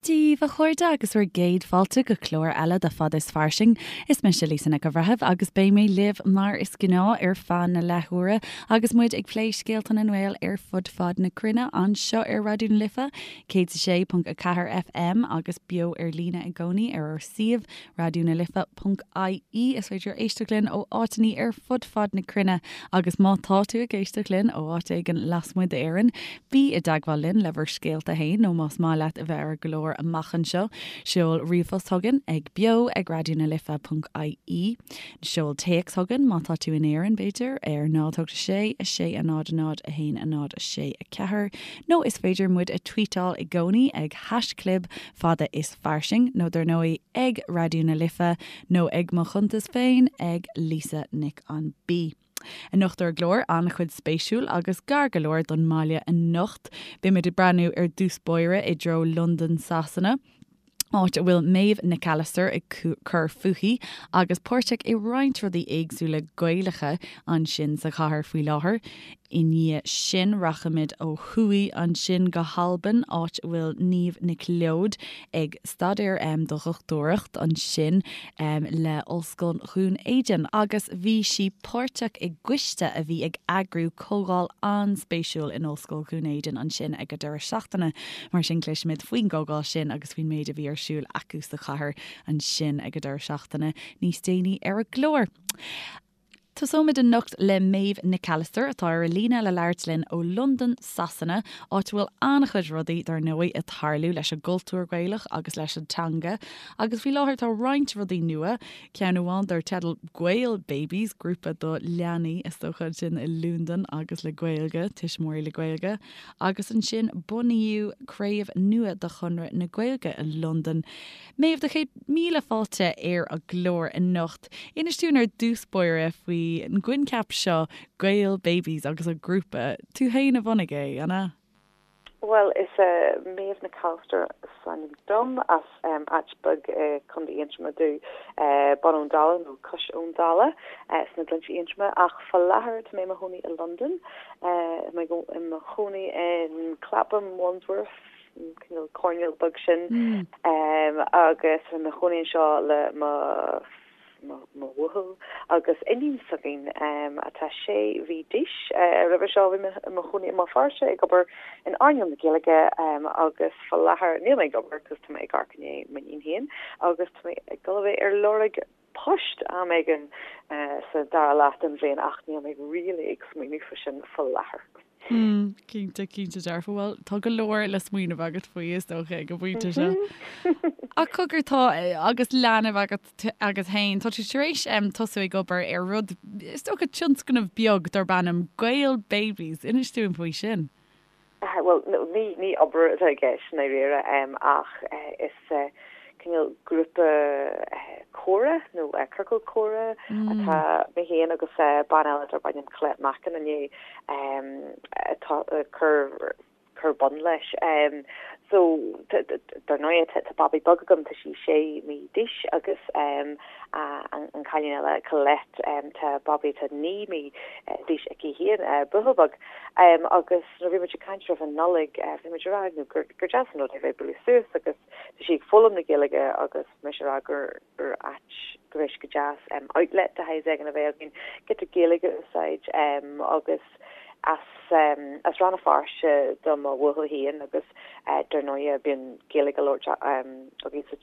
Dia daoibh a chairde agus bhur gcéad fáilte go clár eile de Fada is Fairsing. Is mise Lisa Nic an Bhreithimh agus beidh mé libh mar is gnáth ar feadh na leathuaire agus muid ag plé scéalta na nGael ar fud fad na cruinne anseo ar Raidió na Life 106.4 FM agus beo ar líne i gcónaí ar ár suíomh raidionalife.ie. Is féidir éisteacht linn ó áiteanna ar fud fad na cruinne agus má tá tú ag éisteacht linn ó áit éigin lasmuigh d'Éirinn, bí i dteagmháil linn le bhur scéalta féin nó más maith leat a bheith ar an gclár amach anseo, seol ríomhphost chugainn ag beo ag raidionalife.ie. Seol téacs chugainn má tá tú in Éirinn, b'fhéidir, ar 0 8 6 6 0 0 1 0 6 4 nó is féidir muid a tweetáil i gcónaí ag haischlib fada is fairsing, nó dar ndóigh ag Raidió na Life nó ag mo chuntas féin ag Lisa Nic an B. Anocht ar an gclár, an-chuid spéisiúil agus gar go leor don mbaile anocht. Beimid ag breathnú ar dtús báire i dtreo Londain Sasana, áit a bhfuil Méabh Nic Allister ag cur fúithi agus páirteach i roinnt rudaí éagsúla Gaelacha ansin sa chathair faoi láthair. I ndiaidh sin rachaimid ó thuaidh ansin go hAlbain, áit a bhfuil Niamh Nic Leoid ag staidéar do dhochtúireacht ansin le Ollscoil Dhún Éideann agus bhí sí páirteach i gcoiste a bhí ag eagrú comhdháil an-spéisiúil in Ollscoil Dhún Éideann ansin ag an deireadh seachtaine. Mar sin cloisfimid faoin gcomhdháil sin agus faoin méid a bhí ar siúl acu sa chathair ansin ag an deireadh seachtaine níos déanaí ar an gclár. Tosóimid anocht le Méabh Nic Allister atá ar an líne le labhairt linn ó Londain, Sasana, áit a bhfuil an-chuid rudaí, dar ndóigh, ag tarlú leis an gcultúr Gaelach agus leis an teanga. Agus faoi láthair tá roinnt rudaí nua, ceann amháin dar teideal Gael Babies, grúpa do leanaí, is dócha, ansin i Londain agus le Gaeilge, tuismitheoirí le Gaeilge. Agus ansin bunaíodh craobh nua de Chonradh na Gaeilge i Londain. Méabh, do chéad míle fáilte ar an gclár anocht. Inis dúinn ar dtús báire faoin gcoincheap seo Gael Babies agus an grúpa. Tú féin a bhunaigh é, an ea? Bhuel, is Méabh Nic Allister is ainm dom, as áit beag i Contae Aontroma domh, Bun Abhann Dalla nó Cois Abhann Dalla sna Gleannta Aontroma, ach fá láthair tá mé i mo chónaí i Londain. Tá mé i mo chónaí in Clapham, Wandsworth, an cineál coirnéal beag sin agus tá mé i mo chónaí anseo le mo mo bhuachaill agus iníon s'againn atá sé mhí d'aois. Roimhe seo bhí mé i mo chónaí i mBéal Feirste ag obair in earnáil na Gaeilge agus fá láthair níl mé ag obair cos tá mé ag amharc i ndiaidh m'iníon féin agus tá mé ag dul a bheith ar lorg poist am éigin sa dara leath den bhliain ach níl mé really ag smaoineamh faoi sin fá láthair. Hmm, cinnte, cinnte dearfa. Bhuel, tá go leor le smaoineamh agat faoi is dócha ag an bpointe seo. Ach cogar tá agus leanbh agat agat féin, tá tú tar éis tosú ag obair ar rud, is dócha tionscnamh beag darb ainm Gael Babies. Inis dúinn faoi sin. Bhuel, ní ní obair atá i gceist i ndáiríre ach is cineál grúpa comhrá nó ciorcal comhrá atá mé féin agus bean eile darb ainm Colette Mackin i ndiaidh ag cur cur bun leis. So dar ndóigh tá babaí beag agam, tá sí sé mí d'aois agus an cailín eile Colette tá babaí atá 9 mí d'aois aici féin, buachaill beag. Agus nuair a bhí muid ag caint roimh an Nollaig bhí muid ag rá gur deas an rud é bheith ag bualadh suas agus tá sí ag foghlaim na Gaeilge agus mise ag rá gur gur áit go raibh sé go deas outlet de shaghas éigin a bheith againn, giota Gaeilge a úsáid agus as as Rann na Feirste do mo bhuachaill féin agus dar ndóigh bíonn Gaeilge á labhairt againn sa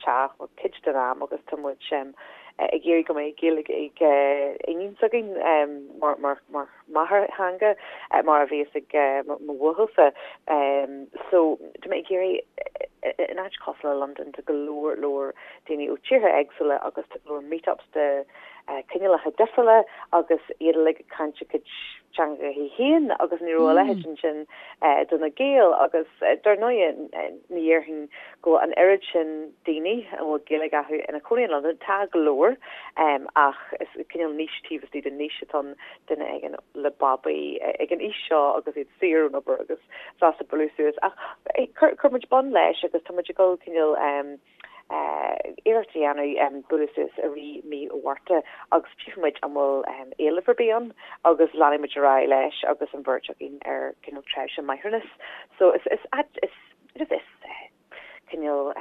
teach cuid den am agus tá muid ag iarraidh go mbeidh Gaeilge ag iníon s'againn mar mar mar máthairtheanga mar a bhíos ag mo bhuachaill-sa. So tá mé ag iarraidh in áit cosúil le Londain tá go leor leor daoine ó tíortha éagsúla agus tá go leor meetups de cineálacha difriúla agus iad uilig ag caint a gcuid teangacha féin agus ní raibh a leithéid ansin do na Gaeil agus dar ndóigh ní dhéarfainn go bhfuil an oiread sin daoine a bhfuil Gaeilge acu ina cónaí in Londain, tá go leor ach is cineál niche taobh istigh de niche atá ann duine éigin le babaí ag an aois seo agus iad saor ón obair agus sásta bualadh suas. Ach chuir muid bun leis agus tá muid ag dul cineál iarracht a dhéanamh bualadh suas i rith mí Mhárta agus tchífidh muid an bhfuil éileamh ar bith ann agus leanfaidh muid ar aghaidh leis agus an bheirt againn ar cineál tréimhse máithreachais. So is is is is. Cineál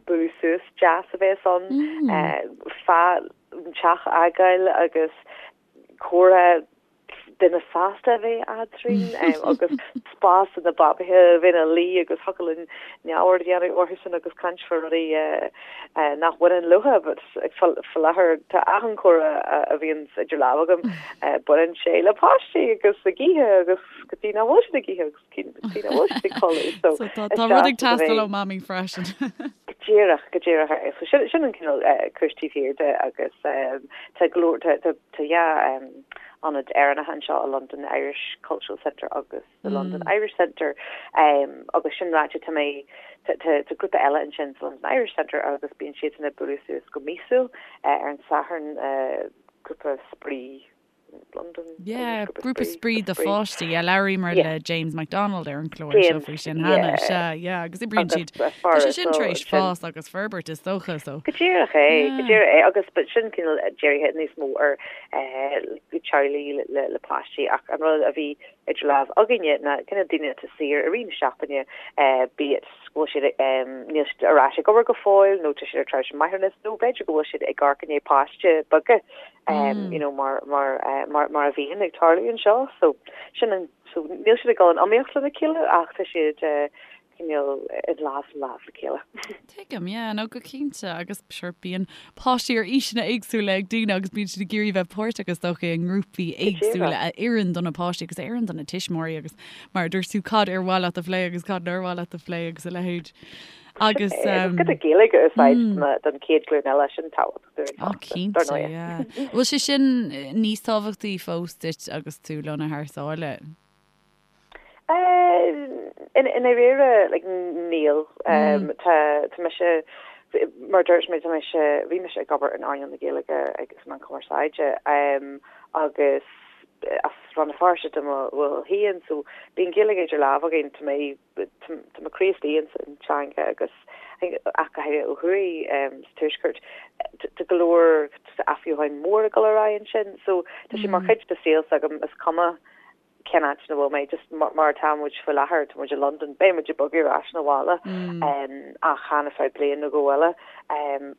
bualadh suas deas a bheas ann fá an teach a fhágáil agus comhrá duine fásta a bheith eadrainn agus spás do na babaithe a bheith ina luí agus thiocfadh linn neamhaird a dhéanamh orthusan agus caint fá rudaí nach bhaineann leo but faoi láthair tá achan chomhrá a bhíonn idir lámha agam baineann sé le páistí agus ag ithe agus go dtí nach bhfuil siad ag ithe agus go dtí nach bhfuil siad ag codladh so So tá tá rud ag teastáil ó mamaí freisin. Go díreach, go díreach é. So sin sin an cineál cúis taobh thiar de agus tá go leor tá tá tá dhá ionad Éireannacha anseo i Londain, the Irish Cultural Centre agus the London Irish Centre agus sin ráite tá mé tá tá tá grúpa eile ansin sa London Irish Centre agus bíonn siadsan ag bualadh suas go míosúil ar an Satharn grúpa spraoi London Yeah, grúpa spraoi do pháistí. Yeah, labhraíomar le James McDonald ar an chlár seo faoi sin cheana. Sea, yeah, agus oibríonn siad. Tá sé sin tar éis fás agus forbairt is dócha, so. Go díreach é, go díreach é, agus but sin cineál dírithe níos mó ar teaghlaigh le páistí ach an rud a bhí idir lámh againne ná cineál daoine atá saor i rith na seachtaine, be it go bhfuil siad, níl siad ar ais ag obair go fóill nó tá siad ar tréimhse máithreachais nó b'fhéidir go bhfuil siad ag amharc i ndiaidh páiste beaga you know mar mar mar mar a bhíonn ag tarlú anseo. So sin an so níl siad ag dul in iomaíocht lena chéile ach tá siad cineál i lámh sa lámh le chéile. Tuigim, yeah, no go cinnte agus sure bíonn páistí ar aoiseanna éagsúla ag daoine agus bíonn siad ag iarraidh bheith páirteach is dócha i ngrúpaí éagsúla a oireann do na páistí agus a oireann do na tuismitheoirí agus mar a dúirt tú cad ar mhaith leat a phlé agus cad nár mhaith leat a phlé agus a leithéid. Agus giota Gaeilge a úsáid don chéad ghlúin eile sin tábhachtach dúinn fosta. Cinnte, yeah. Bhfuil sé sin níos tábhachtaí fós duit agus tú lonnaithe thar sáile? I ndáiríre, like, níl. Tá tá mise, mar a dúirt mé, tá mise, bhí mise ag obair in earnáil na Gaeilge agus sna meáin chumarsáide agus as Rann na Feirste do mo bhaill féin, so bíonn Gaeilge idir lámha againn, tá mé tá mo chroí istigh ins an teanga agus ach go háirithe ó thuaidh sa tuaisceart tá go leor athbheochan mór ag dul ar aghaidh ansin so tá sé mar chuid de saol s'agam is cuma cén áit ina bhfuil mé just mar atá muid faoi láthair tá muid i Londain beidh muid ag bogadh ar ais 'na bhaile ach chan ar feadh bliain nó dhó eile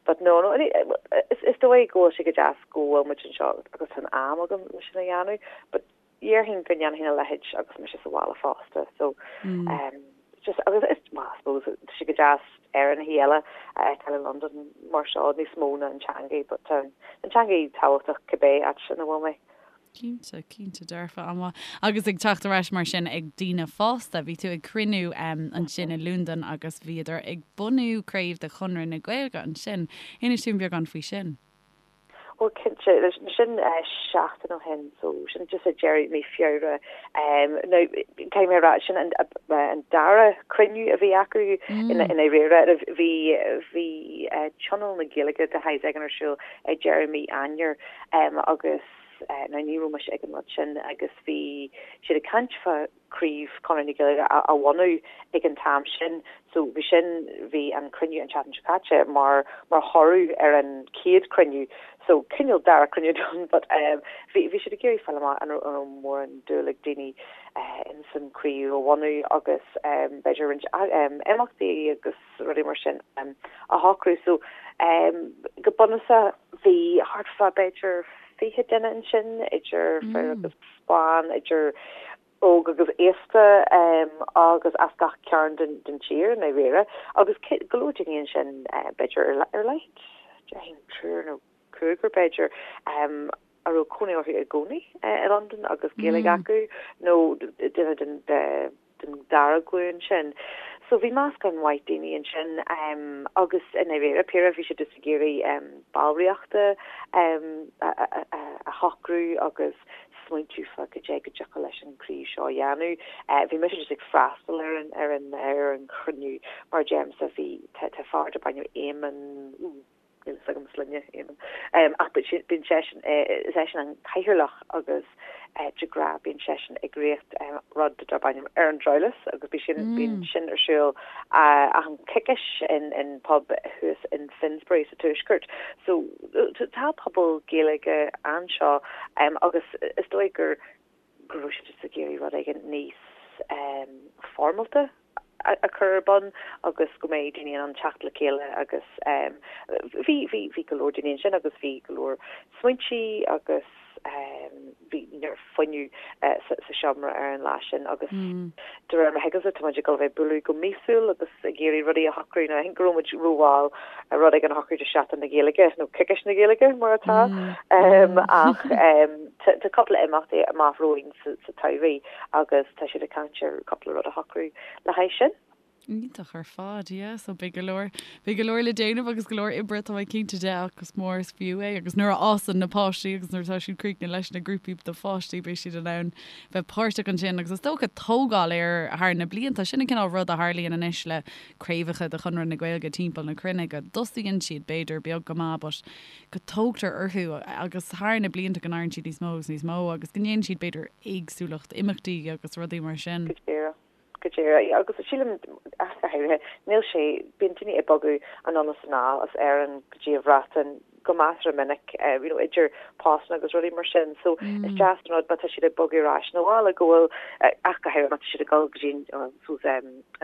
but no no is dóigh go bhfuil sé go deas go bhfuil muid anseo agus tá an am agam le sin a dhéanamh but Dhéarfainn go ndéanfainn a leithéid agus mise sa bhaile fosta so just agus is well I suppose tá sé go deas Éireannaigh eile a fheiceáil i Londain mar seo níos mó ná an teangaidh but tá an teangaidh tábhachtach cibé áit ina bhfuil mé. Cinnte, cinnte dearfa, an-mhaith. Agus ag teacht ar ais mar sin ag daoine fásta, bhí tú ag cruinniú ansin i Londain agus bhíodar ag bunú craobh de Chonradh na Gaeilge ansin. Inis dúinn beagán faoi sin. Bhuel cinnte, sin seachtain ó shin, so sin just ag deireadh mí Feabhra. Now caithfidh mé a rá, sin an dara cruinniú a bhí acu i ndáiríre. Bhí bhí Tionól na Gaeilge de shaghas éigin ar siúl ag deireadh mí Eanáir agus now ní raibh mise ag an rud sin agus bhí siad ag caint fá craobh Chonradh na Gaeilge a bhunú ag an t-am sin. So bhí sin, bhí an cruinniú an tseachtain seo caite mar mar thoradh ar an chéad cruinniú. So cineál dara cruinniú done but bhí bhí siad ag iarraidh fáil amach an raibh an raibh mórán dúil ag daoine ins an craobh a bhunú agus b'fhéidir roinnt imeachtaí agus rudaí mar sin a shocrú. So go bunúsach bhí thart fá b'fhéidir 20 duine ansin idir fir agus ban, idir óg agus aosta agus as gach cearn den tír i ndáiríre agus go leor daoine ansin b'fhéidir ar a laghad, déarfainn triúr nó cúigear b'fhéidir, a raibh cónaí orthu i gcónaí i Londain agus Gaeilge acu nó duine den den dara glúin sin. So bhí meascán maith daoine ansin agus i ndáiríre píre bhí siad just ag iarraidh ballraíochta a shocrú agus smaointiú fá cad é go dtiocfadh leis an craobh seo a dhéanamh. Bhí mise just ag freastal ar an ar an ar an chruinniú mar a deirimse bhí tá tá fear darb ainm Éamonn níl fhios agam sloinne Éamonn ach bíonn seisean is eisean an cathaoirleach agus de ghnáth bíonn seisean ag rith rud darb ainm ar an Dreabhlas agus bhí sin bíonn sin ar siúl achan coicís in in pub thuas in Finsbury sa Tuaisceart. So tá pobal Gaeilge anseo agus is dóigh gur go raibh siad just ag iarraidh rud éigin níos foirmeálta. a chur ar bun agus go mbeidh daoine in ann teacht le chéile agus bhí bhí bhí go leor daoine ansin agus bhí go leor smaointí agus bhí neart fuinneamh sa seomra ar an lá sin agus de réir mar a thuigimse tá muid ag dul a bheith ag bualadh go míosúil agus ag iarraidh rudaí a shocrú. Now I think go raibh muid rómhall rud éigin a shocrú do Seachtain na Gaeilge nó Coicís na Gaeilge mar atá ach tá cúpla imeachtaí amach romhainn sa tsamhraidh agus tá siad ag caint ar cúpla rud a shocrú le haghaidh sin. Iontach ar fad, yeah. So beidh go leor, beidh go leor le déanamh agus go leor oibre tá mé cinnte de ach is mór is fiú é agus nuair a fhásann na páistí agus nuair atá siad críochnaithe leis na grúpaí do pháistí beidh siad in ann bheith páirteach ansin agus is dócha tógáil air thar na blianta. Sin an cineál rud a tharlaíonn anois le craobhacha de Chonradh na Gaeilge timpeall na cruinne go dtosaíonn siad b'fhéidir beag go maith but go dtógtar orthu agus thar na blianta go n-éiríonn siad níos mó agus níos mó agus go ndéanann siad b'fhéidir éagsúlacht imeachtaí agus rudaí mar sin. Go díreach. Go díreach. Agus sílim, ach go háirithe, níl sé, bíonn daoine ag bogadh anonn is anall as Éirinn go dtí an Bhreatain go measartha minic, you know, idir postanna agus rudaí mar sin. So is deas an rud má tá siad ag bogadh ar ais 'na bhaile go bhfuil, ach go háirithe má tá siad ag dul go dtí an, suppose,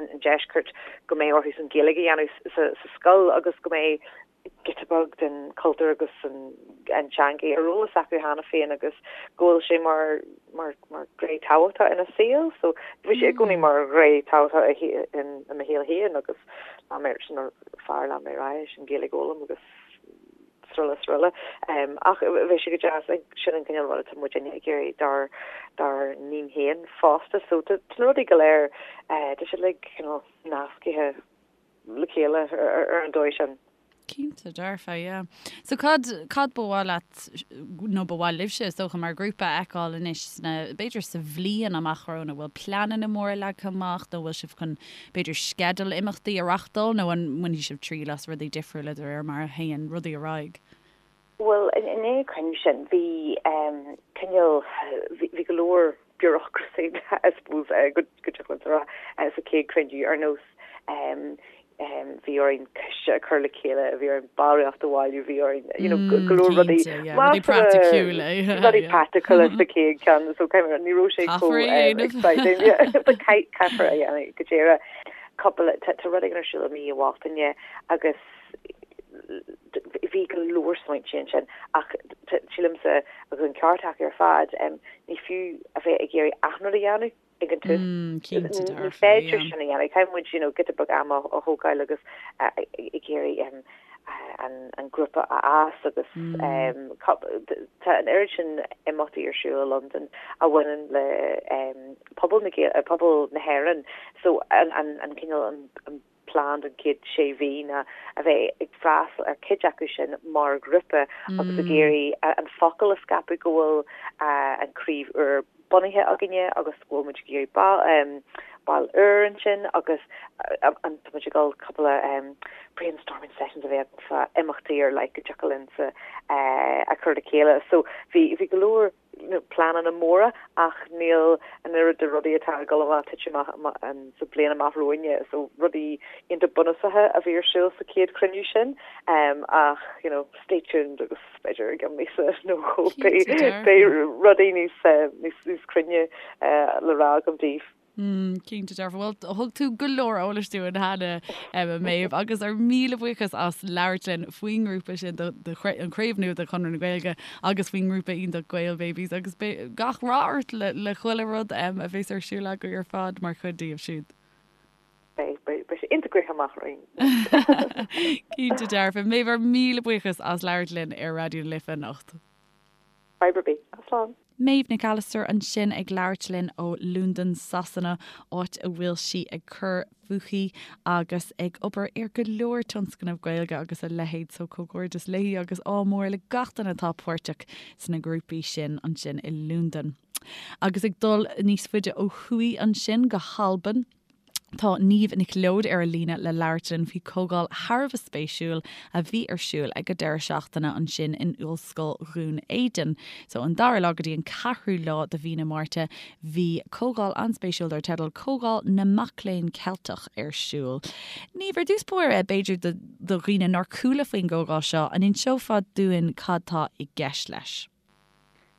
an deisceart, go mbeidh orthu an Ghaeilge a dhéanamh sa scoil agus go mbeidh giota beag den chultúr agus an teanga ar eolas acu cheana féin agus go bhfuil sé mar mar mar ghné tábhachtach ina saol. So bhí sé i gcónaí mar ghné tábhachtach i i mo shaol féin agus lean mé sin mar fear lean mé ar aghaidh leis an Ghaeilge a fhoghlaim agus sroile sroile. Ach bheadh sé go deas sin an cineál rud atá muidinne ag iarraidh dár dár n-iníon féin fosta. So tá na rudaí go léir tá siad like cineál nascaithe le chéile ar an dóigh sin. Cinnte, dearfa, yeah. So cad, cad ba mhaith leat, nó ba mhaith libhse, is dócha, mar ghrúpa a fheiceáil anois sna, b'fhéidir sa bhliain amach romhainn, an bhfuil pleananna móra leagtha amach nó bhfuil sibh chun, b'fhéidir, sceideal imeachtaí a reachtáil nó an mbainfidh sibh triail as rudaí difriúla de réir mar a théann rudaí ar aghaidh? Bhuel, i ndiaidh an cruinniú sin, bhí cineál, bhí go leor bureaucracy, I suppose, go dtiocfadh linn a rá, sa chéad chruinniú, ar nós bhí orainn coiste a chur le chéile, bhí orainn ballraíocht a bhailiú, bhí orainn, you know, go leor rudaí, rudaí praiticiúla, rudaí praiticiúla sa chéad cheann, so ní raibh sé chomh exciting, caithfear a dhéanamh go díreach. Cúpla, tá rud éigin ar siúl i mí an Bhealtaine agus Bhí go leor smaointe ansin ach sílimse, agus an ceart acu ar fad, ní fiú a bheith ag iarraidh achan rud a dhéanamh ag an tús. Ní féidir sin a dhéanamh. Caithfidh muid you know giota beag ama a thógáil agus ag iarraidh an grúpa a fhás agus tá an oiread sin imeachtaí ar siúl i Londain a bhaineann le pobal na pobal na hÉireann so an cineál an plean don chéad sé mhí ná a bheith ag freastal ar chuid acu sin mar ghrúpa agus ag iarraidh an focal a scaipeadh go bhfuil an chraobh úr bunaithe againne agus go bhfuil muid ag iarraidh baill úr ansin agus tá muid ag dul cúpla brainstorming sessions a bheith againn fá imeachtaí ar leith go dtiocfadh linn a chur le chéile. So bhí bhí go leor pleananna móra ach níl an oiread de rudaí atá ag dul amach titim amach sa bliain amach romhainne so rudaí iontach bunúsacha a bhí ar siúl sa chéad chruinniú sin ach you know stay tuned agus b'fhéidir i gceann míosa nó dhó beidh rudaí níos níos cruinne le rá agam daoibh. Cinnte dearfa. Bhuel, thug tú go leor eolais dúinn cheana, a Méabh, agus ár míle buíochas as labhairt linn faoin ngrúpa sin, an chraobh nua de Chonradh na Gaeilge agus faoin ngrúpa iontach Gael Babies agus gach rath ort le chuile rud a bheas ar siúl agaibh ar fad mar chuid díobh siúd. Beidh, beidh sé iontach gnoitheach amach romhainn. Cinnte dearfa. Méabh, ár míle buíochas as labhairt linn ar Raidió na Life anocht. Fadhb ar bith. Slán. Méabh Nic Allister ansin ag labhairt linn ó Londain, Sasana, áit a bhfuil sí ag cur fúithi agus ag obair ar go leor tionscnamh Gaeilge agus a leithéid so comhghairdeas léi agus ádh mór le gach duine atá páirteach sna grúpaí sin ansin i Londain. Agus ag dul níos faide ó thuaidh ansin go hAlbain, Tá Niamh Nic Leoid ar an líne le labhairt linn faoi chomhdháil thar a bheith spéisiúil a bhí ar siúl ag an deireadh seachtaine ansin in Ollscoil Dhún Éideann. So an dara lá go dtí an ceathrú lá de mhí na Márta bhí comhdháil an-spéisiúil dar teideal Comhdháil na Mac Léinn Ceilteach ar siúl. Niamh, ar dtús báire, b'fhéidir do dhaoine nár chuala faoin gcomhdháil seo, an inseofá dúinn cad tá i gceist leis?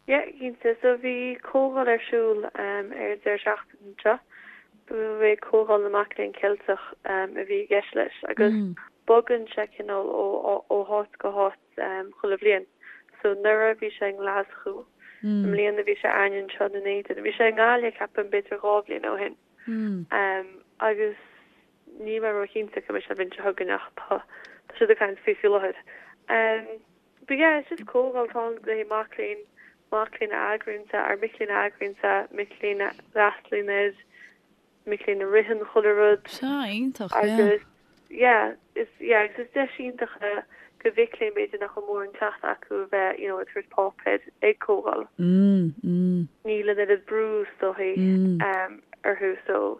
Yeah, cinnte. So bhí comhdháil ar siúl ar an deireadh seachtaine seo. Ba é Comhdháil na Mac Léinn Ceilteach a bhí i gceist leis agus bogann sé cineál ó háit go háit chuile bhliain. So anuraidh bhí sé i nGlaschú, i mbliana bhí sé againne anseo i nDún Éideann. Bhí sé i nGaillimh ceapaim b'fhéidir 2 bhliain ó shin. Agus níl mé róchinnte cá mbeidh sé an bhliain seo chugainn ach tá siad ag caint faoi faoi láthair. But yeah, it's just comhdháil atá ann le haghaidh mac léinn, mac léinn a eagraíonn é, ar mic léinn a eagraíonn é, mic léinn a fhreastalaíonn air, mic léinn a ritheann chuile rud. Sea, iontach, yeah. Agus yeah, is yeah, agus is deis iontach é do mhic léinn b'fhéidir nach bhfuil mórán cleachtadh acu a bheith, you know, ag tabhairt páipéir ag comhdháil. Mm, mm. Níl an oiread brú is dóichí mm. orthu so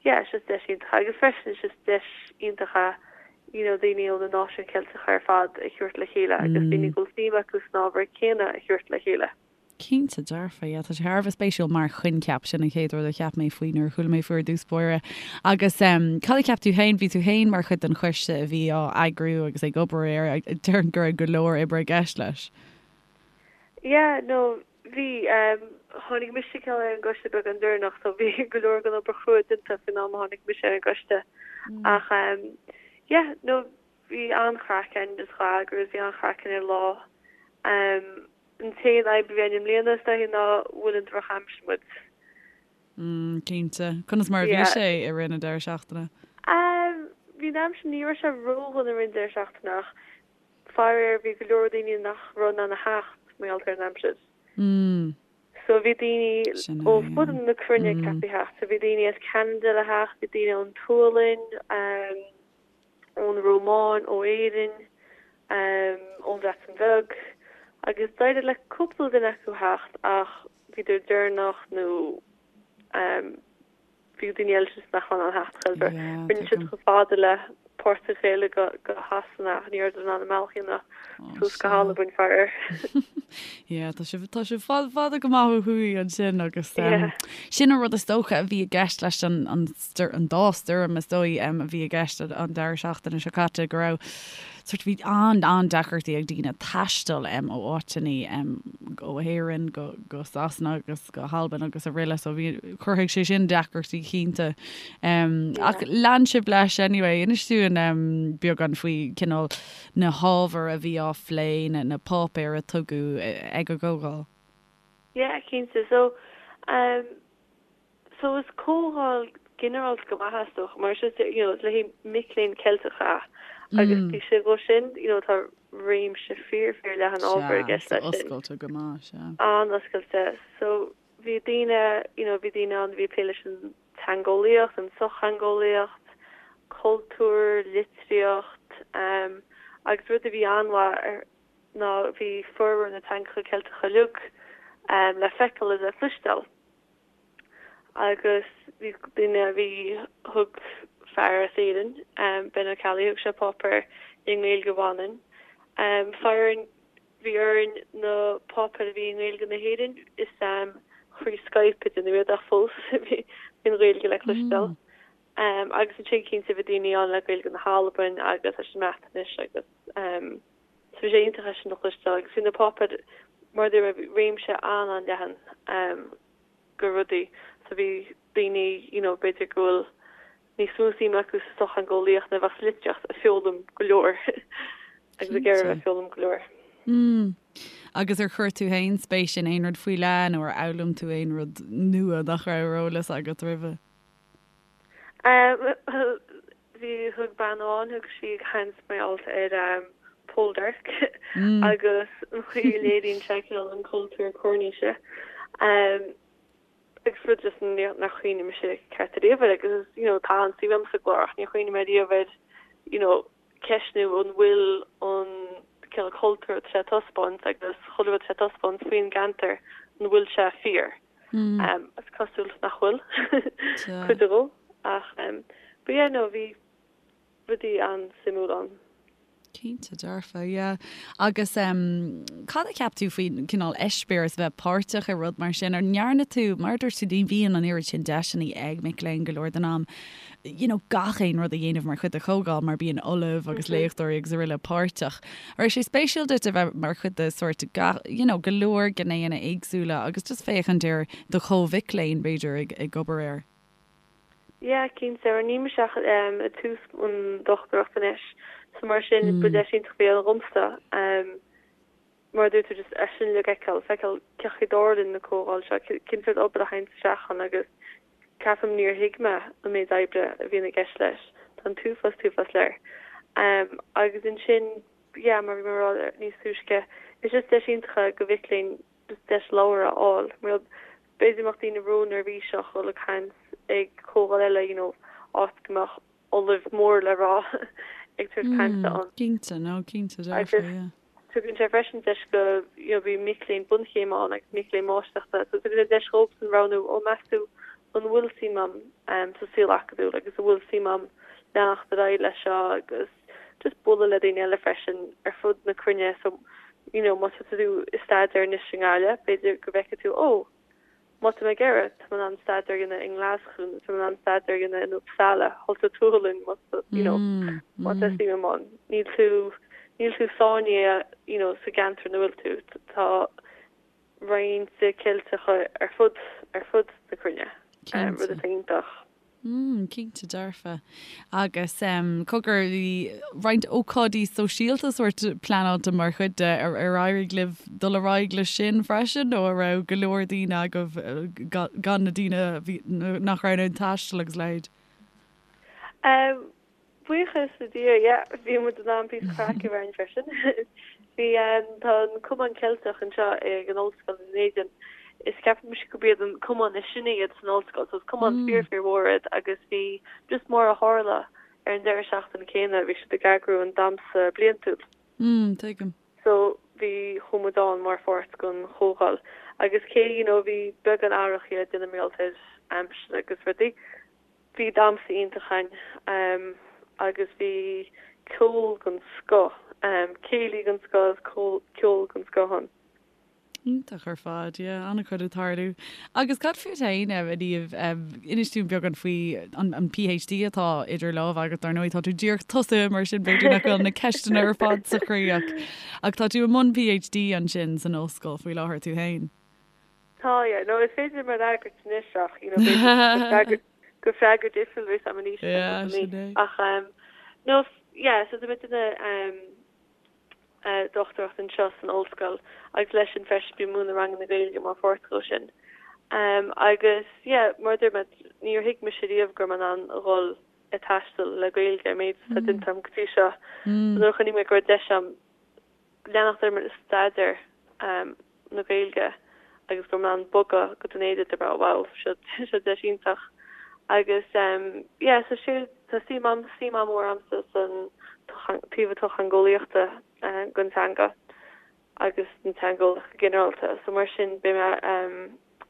yeah it's just deis iontach agus freisin it's just deis iontach é you know daoine ó na náisiúin Cheilteacha ar fad a thabhairt le chéile agus daoine go bhfuil suim acu san ábhar céanna a thabhairt le chéile. Cinnte dearfa, yeah, tá sé thar a bheith spéisiúil mar choincheap, sin an chéad rud a cheap mé faoi nuair a chuala mé faoi ar dtús báire. Agus um, cad a cheap tú féin, bhí tú féin mar chuid den choiste a bhí á eagrú agus ag obair air, déarfainn go raibh go leor oibre i gceist leis. Yeah, no, Bhí. Tháinig mise cineál ar an gcoiste beagán deireanach so bhí go leor den obair chrua déanta faoin am a tháinig mise ar an gcoiste. Ach yeah, no, bhí an-chraic againn just dhá eagrú agus bhí an-chraic againn ar an lá. An t-aon fhadhb a bhí againn i mbliana is dóichí ná bhuail an drochaimsir muid. Mm, cinnte. Conas mar a bhí sé i rith na deireadh seachtaine? Bhí an aimsir, ní raibh sé ródhona i rith an deireadh seachtaine ach Faraor bhí go leor daoine nach raibh in ann a theacht mar gheall ar an aimsir. So bhí daoine ó fud na cruinne ceaptha theacht. So bhí daoine as Ceanada le theacht, bhí daoine ón tSualainn, ón Rómáin, ó Éirinn, ón Bhreatain Bheag agus d'éirigh le cúpla duine acu theacht ach bhíodar deireanach nó Bhí daoine eile just nach raibh in ann theacht chor ar bith. Rinne siad chomh fada le páirt a ghéilleadh go Shasana ach ní rabhadar in ann a mbealach a dhéanamh suas go hAlbain, faraor. Yeah, tá sibh, tá sibh fada, fada go maith ó thuaidh ansin agus sin an rud is dócha a bhí i gceist leis an, an, an dá stoirm is dóigh a bhí i gceist an deireadh seachtaine seo caite go raibh sort bhí an-an-deacrachtaí ag daoine taisteal ó áiteanna ó Éirinn go, go Sasana agus go hAlbain agus araile so bhí, chruthaigh sé sin deacrachtaí cinnte. Ach lean sibh leis anyway, inis dúinn beagán faoi cineál na hábhair a bhí á phlé, na, na páipéir a tugadh ag an gcomhdháil. Yeah, cinnte. So, um, So is comhdháil ginearálta go maith é is dócha mar is just you know is le haghaidh mic léinn Ceilteacha agus taobh istigh dhó sin you know tá réimse fíor fíor leathan ábhar i gceist leis sin. Oscailte go maith, sea. An-oscailte. So bhí daoine you know bhí daoine ann a bhí ag plé leis an teangeolaíocht, an tsochtheangeolaíocht, cultúr, litríocht um agus rud a bhí an-mhaith ar ná bhí formhór na teangacha Ceilteacha uilig um le feiceáil is le cloisteáil. Agus bhí duine a bhí, thug fear as Éirinn, Ben Ó Ceallaigh, thug sé páipéar i nGaeilge Mhanann. Faraor, bhí orainn na páipéir a bhí i nGaeilge na hÉireann, is thrí Skype a déanadh iad ach fós bhí an Ghaeilge le cloisteáil. Agus ansin cinnte bhí daoine ann le Gaeilge na hAlbain agus leis an mBreatnais agus so bhí sé iontach é sin a chloisteáil agus bhí na páipéir mar a dúirt mé réimse an-an-leathan de rudaí so bhí daoine you know b'fhéidir go bhfuil níos mó suim acu sa sochtheangeolaíocht ná a bheadh sa litríocht ag foghlaim go leor agus ag iarraidh a bheith ag foghlaim go leor. Mm. Agus ar chuir tú féin spéis in aon rud faoi leith nó ar fhoghlaim tú aon rud nua nach raibh ar eolas agat roimhe? Bhuel, bhí, thug bean amháin, thug sí caint mar gheall ar Poldark agus an chaoi a léiríonn sé cineál an cultúr Coirníse. Agus rud just nár chuimhnigh mise ceart ariamh air agus you know tá an-suim agam sa gclár ach níor chuimhnigh mé ariamh air you know ceistniú an bhfuil an cineál cultúr atá sé ag taispeáint agus chuile rud atá sé ag taispeáint faoin gceantar an bhfuil sé fíor. Is cosúil nach bhfuil cuid dhó ach but yeah no bhí rudaí an-suimiúil ann. Cinnte dearfa, yeah. Agus cad a cheap tú faoin cineál eispéireas a bheith páirteach i rud mar sin? Ar ndearna tú, mar a dúirt tú, ní bhíonn an oiread sin deiseanna ag mic léinn go leor den am, you know, gach aon rud a dhéanamh mar chuid de chomhdháil mar bíonn ollaimh agus léachtóirí agus araile páirteach. An raibh sé spéisiúil duit a bheith mar chuid de sórt gach, you know, go leor gnéanna éagsúla agus just féachaint ar do chomh-mhic léinn, b'fhéidir, ag, ag obair air? Yeah, cinnte, mar níl mise ach ag tús an dochtúireacht anois, so mar sin ba deis iontach a bhí ann dhomsa, mar a dúirt tú, just é sin uilig a fheiceáil, feiceáil cén chaoi a dtarlaíonn na comhdháil seo, cén sórt obair a théann isteach ann agus ceapaim níor thuig mé an méid oibre a bhíonn i gceist leis, tá an t-uafás, t-uafás léir. Agus ansin, yeah, mar a bhí mé ag rá níos túisce, is just deis iontach é do mhic léinn just deis labhairt a fháil, mar b'fhéidir go mbeadh daoine ró-neirbhíseach dhul ag caint ag comhdháil eile, you know, áit go mbeadh ollamh mór le rá ag tabhairt cainte ann. Cinnte, no, cinnte, dearfa, yeah. Tugann sé freisin deis go, you know, bíonn mic léinn bunchéime ann agus mic léinn máistreachta, so tugann sé deis dhóibhsean roghnú, ó meas tú an bhfuil suim a'm sa saol acadúil agus an bhfuil suim a'm leanacht ar aghaidh leis seo agus just bualadh le daoine eile freisin ar fud na cruinne so you know má tá tú ag staidéar anois i nGaillimh b'fhéidir go bhfeicfidh tú ó má tá mé ag iarraidh tá mé in ann staidéar a dhéanamh i nGlaschú nó tá mé in ann staidéar a dhéanamh in Uppsala thall sa tSualainn má tá you know má tá suim a'm ann níl tú níl tú sáinnithe you know sa gceantar ina bhfuil tú tá roinnt Ceilteacha ar fud ar fud na cruinne rud atá iontach. Mm, cinnte dearfa. Agus cogar, bhí roinnt ócáidí sóisialta sórt pleanáilte mar chuid de, ar éirigh libh dul ar aghaidh leis sin freisin nó an raibh go leor daoine agaibh gan na daoine a bhí, nach raibh in ann taisteal agus a leithéid? Buíochas le Dia, yeah, bhí muid in ann píosa craic a bheith againn freisin. Bhí, tá an Cumann Ceilteach anseo ag an Ollscoil i nDún Éideann. Is ceapaimse gurb iad an cumann is sine iad san ollscoil, so is cumann fíor fíor mhór iad agus bhí, just mar a tharla, ar an deireadh seachtaine céanna bhí siad ag eagrú an damhsa bliantúil. Mm, tuigim. So bhí, chuaigh muid ann mar pháirt den chomhdháil agus cé, you know, bhí beagán aireachaí le déanamh mar gheall ar aimsir agus rudaí, Bhí damhsa iontach againn agus bhí ceol den scoth, céilí den scoth agus ceol den scoth ann. Iontach ar fad, yeah, an-chuid ag tarlú. Agus cad fút féin, a Niamh, inis dúinn beagán faoi an PhD atá idir lámha agat, dar ndóigh tá tú díreach tosaithe mar sin b'fhéidir nach bhfuil na ceisteanna ar fad sa chroí ach ach tá tú i mbun PhD ansin san ollscoil faoi láthair tú féin. Tá, yeah. No, is féidir liom a fhreagairt anois ach, you know, b'fhéidir gur freagra difriúil a bheas agam anois. Yeah, sin é. Ach, um, no, yeah, so tá mé ag déanamh um, uh, dochtúireacht anseo san ollscoil agus leis sin freisin bím ag múineadh ranganna Gaeilge mar pháirt dhó sin. Um, agus, yeah, mar a dúirt mé, níor thuig mise riamh go raibh mé in ann a dhul ag taisteal le Gaeilge an méid atá déanta agam go dtí seo. So nuair a chonaic mé go raibh deis agam leanacht orm ag staidéar na Gaeilge agus go raibh mé in ann bogadh go Dún Éideann dúirt mé wow seo seo deis iontach agus yeah so sé tá suim am suim an-mhór a'msa san taobh sochtheangeolaíochta den teanga agus den teangeolaíocht go ginearálta so mar sin beidh mé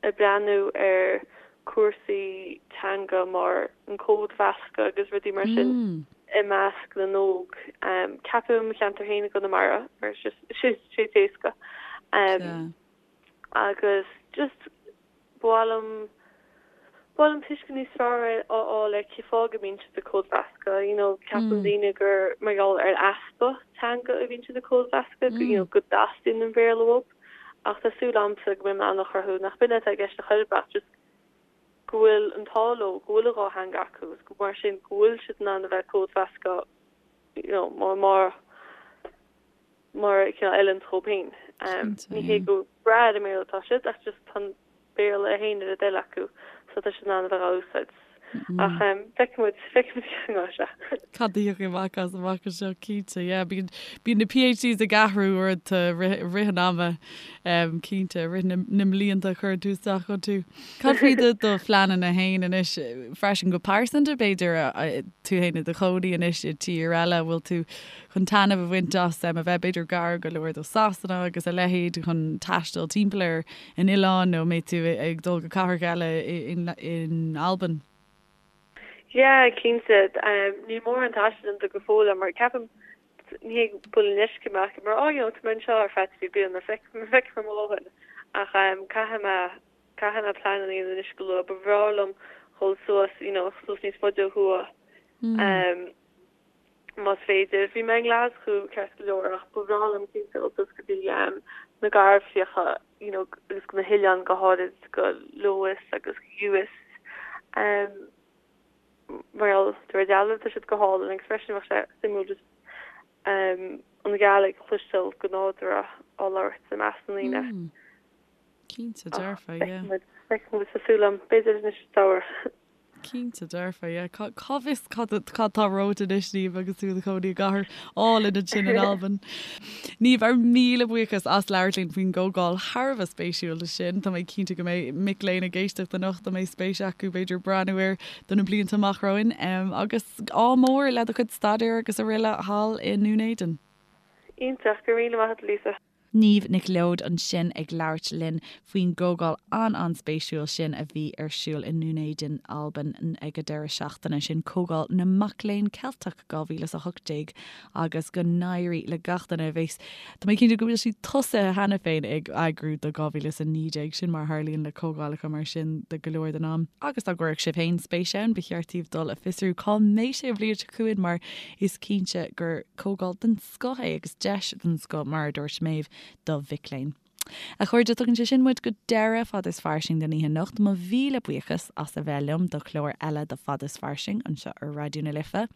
ag breathnú ar cúrsaí teanga mar an códmheascadh agus rudaí mar sin i measc na n-óg. Ceapaim i mo cheantar féin i gConamara mar is just sé sé éasca. Agus just ba mhaith liom ba mhaith liom tuiscint níos fearr a fháil ar cén fáth go mbíonn siad ag códmheascadh. You know, ceapann daoine gur mar gheall ar easpa teanga a bhíonn siad ag códmheascadh, you know, go dteastaíonn an Béarla uathu. Ach tá súil a'msa go mbeidh mé in ann a chruthú nach b'in atá i gceist ar chor ar bith ach just go bhfuil an t-ádh leo go bhfuil an dá theanga acu agus go mar sin go bhfuil siad in ann a bheith códmheascadh you know mar mar mar cineál a fheileann dóibh féin. Ní hé go breá ar an mBéarla atá siad ach just tá an Béarla féin ar a dtoil acu so tá siad in ann a bheith á úsáid. Ach feicfidh muid, feicfidh muid cén áit é. Cad a thiocfaidh amach as amach anseo, cinnte, yeah. Bíonn, bíonn na PhDs ag athrú uaireanta i rith, i rith an ama, cinnte, i rith na, na mblianta a chuireann tú isteach iontu. Cad faoi do, do phleananna féin anois freisin go pearsanta, b'fhéidir, tú féin i do chónaí anois i dtír eile, bhfuil tú chun taitneamh a bhaint as a bheith b'fhéidir gar go leor do Sasana agus a leithéid chun taisteal timpeall ar an oileán nó an mbeidh tú ag dul go cathracha eile in Albain? Yeah, cinnte. Níl mórán taistil déanta go fóill agam mar ceapaim, ní hé go bhfuil an leisce orm ach mar oh you know tá mé anseo ar feadh 3 bliana, feicfidh mé mo dhóthain. Ach caithfidh mé, caithfidh mé plean a dhéanamh anois go luath. Ba bhreá liom dhul suas, you know, suas níos faide ó thuaidh. Más féidir. Bhí mé i nGlaschú ceart go leor ach ba bhreá liom cinnte dul suas go dtí na Garbhchríocha you know agus go na hoileáin go háirid go Lewis agus Uist. Mar gheall de réir dealraimh tá siad go hálainn agus freisin bheadh sé suimiúil just an Ghàidhlig a chloisteáil go nádúrtha á labhairt i measc na ndaoine. Cinnte dearfa, yeah. Feicfidh muid, tá súil agam, b'fhéidir anois sa samhradh. Cinnte dearfa, yeah. Cá bhfios cad cad tá romhat anois, Niamh, agus tú i do chónaí i gcathair álainn ansin in Albain. Niamh, ár míle buíochas as labhairt linn faoin gcomhdháil thar a bheith spéisiúil sin. Tá mé cinnte go mbeidh mic léinn ag éisteacht anocht a mbeidh spéis acu b'fhéidir breathnú air do na blianta amach romhainn. Agus ádh mór le do chuid staidéir agus araile thall i nDún Éideann. Iontach, go raibh míle maith agat, Lisa. Niamh Nic Leoid ansin ag labhairt linn faoin gcomhdháil an-an-spéisiúil sin a bhí ar siúl i nDún Éideann, Albain ag an deireadh seachtaine sin, Comhdháil na Mac Léinn Ceilteach 2018 agus go n-éirí le gach duine a bheas, tá mé cinnte go bhfuil siad tosaithe cheana féin ag eagrú do 2019, sin mar a tharlaíonn le comhdhálacha mar sin de go leor den am. Agus dá gcuirfeadh sibh féin spéis ann, ba cheart daoibh dul a fiosrú cá mbeidh sé an bhliain seo chugainn mar is cinnte gur comhdháil den scoth é agus deis den scoth, mar a dúirt Méabh, do mhic léinn. A chairde, tugann sé sin muid go deireadh Fad is Fairsing don oíche anocht. Mo mhíle buíochas as a bheith liom do chlár eile de Fad is Fairsing anseo ar Raidió na Life.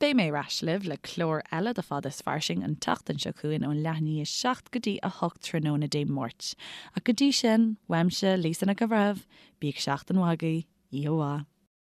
Beidh mé ar ais libh le clár eile de Fad is Fairsing an tseachtain seo chugainn ón leath i ndiaidh a 7 go dtí 8 tráthnóna Dé Máirt. Ach go dtí sin, uaimse, Lisa Nic an Bhreithimh, bíodh seachtain mhaith agaibh, oíche mhaith.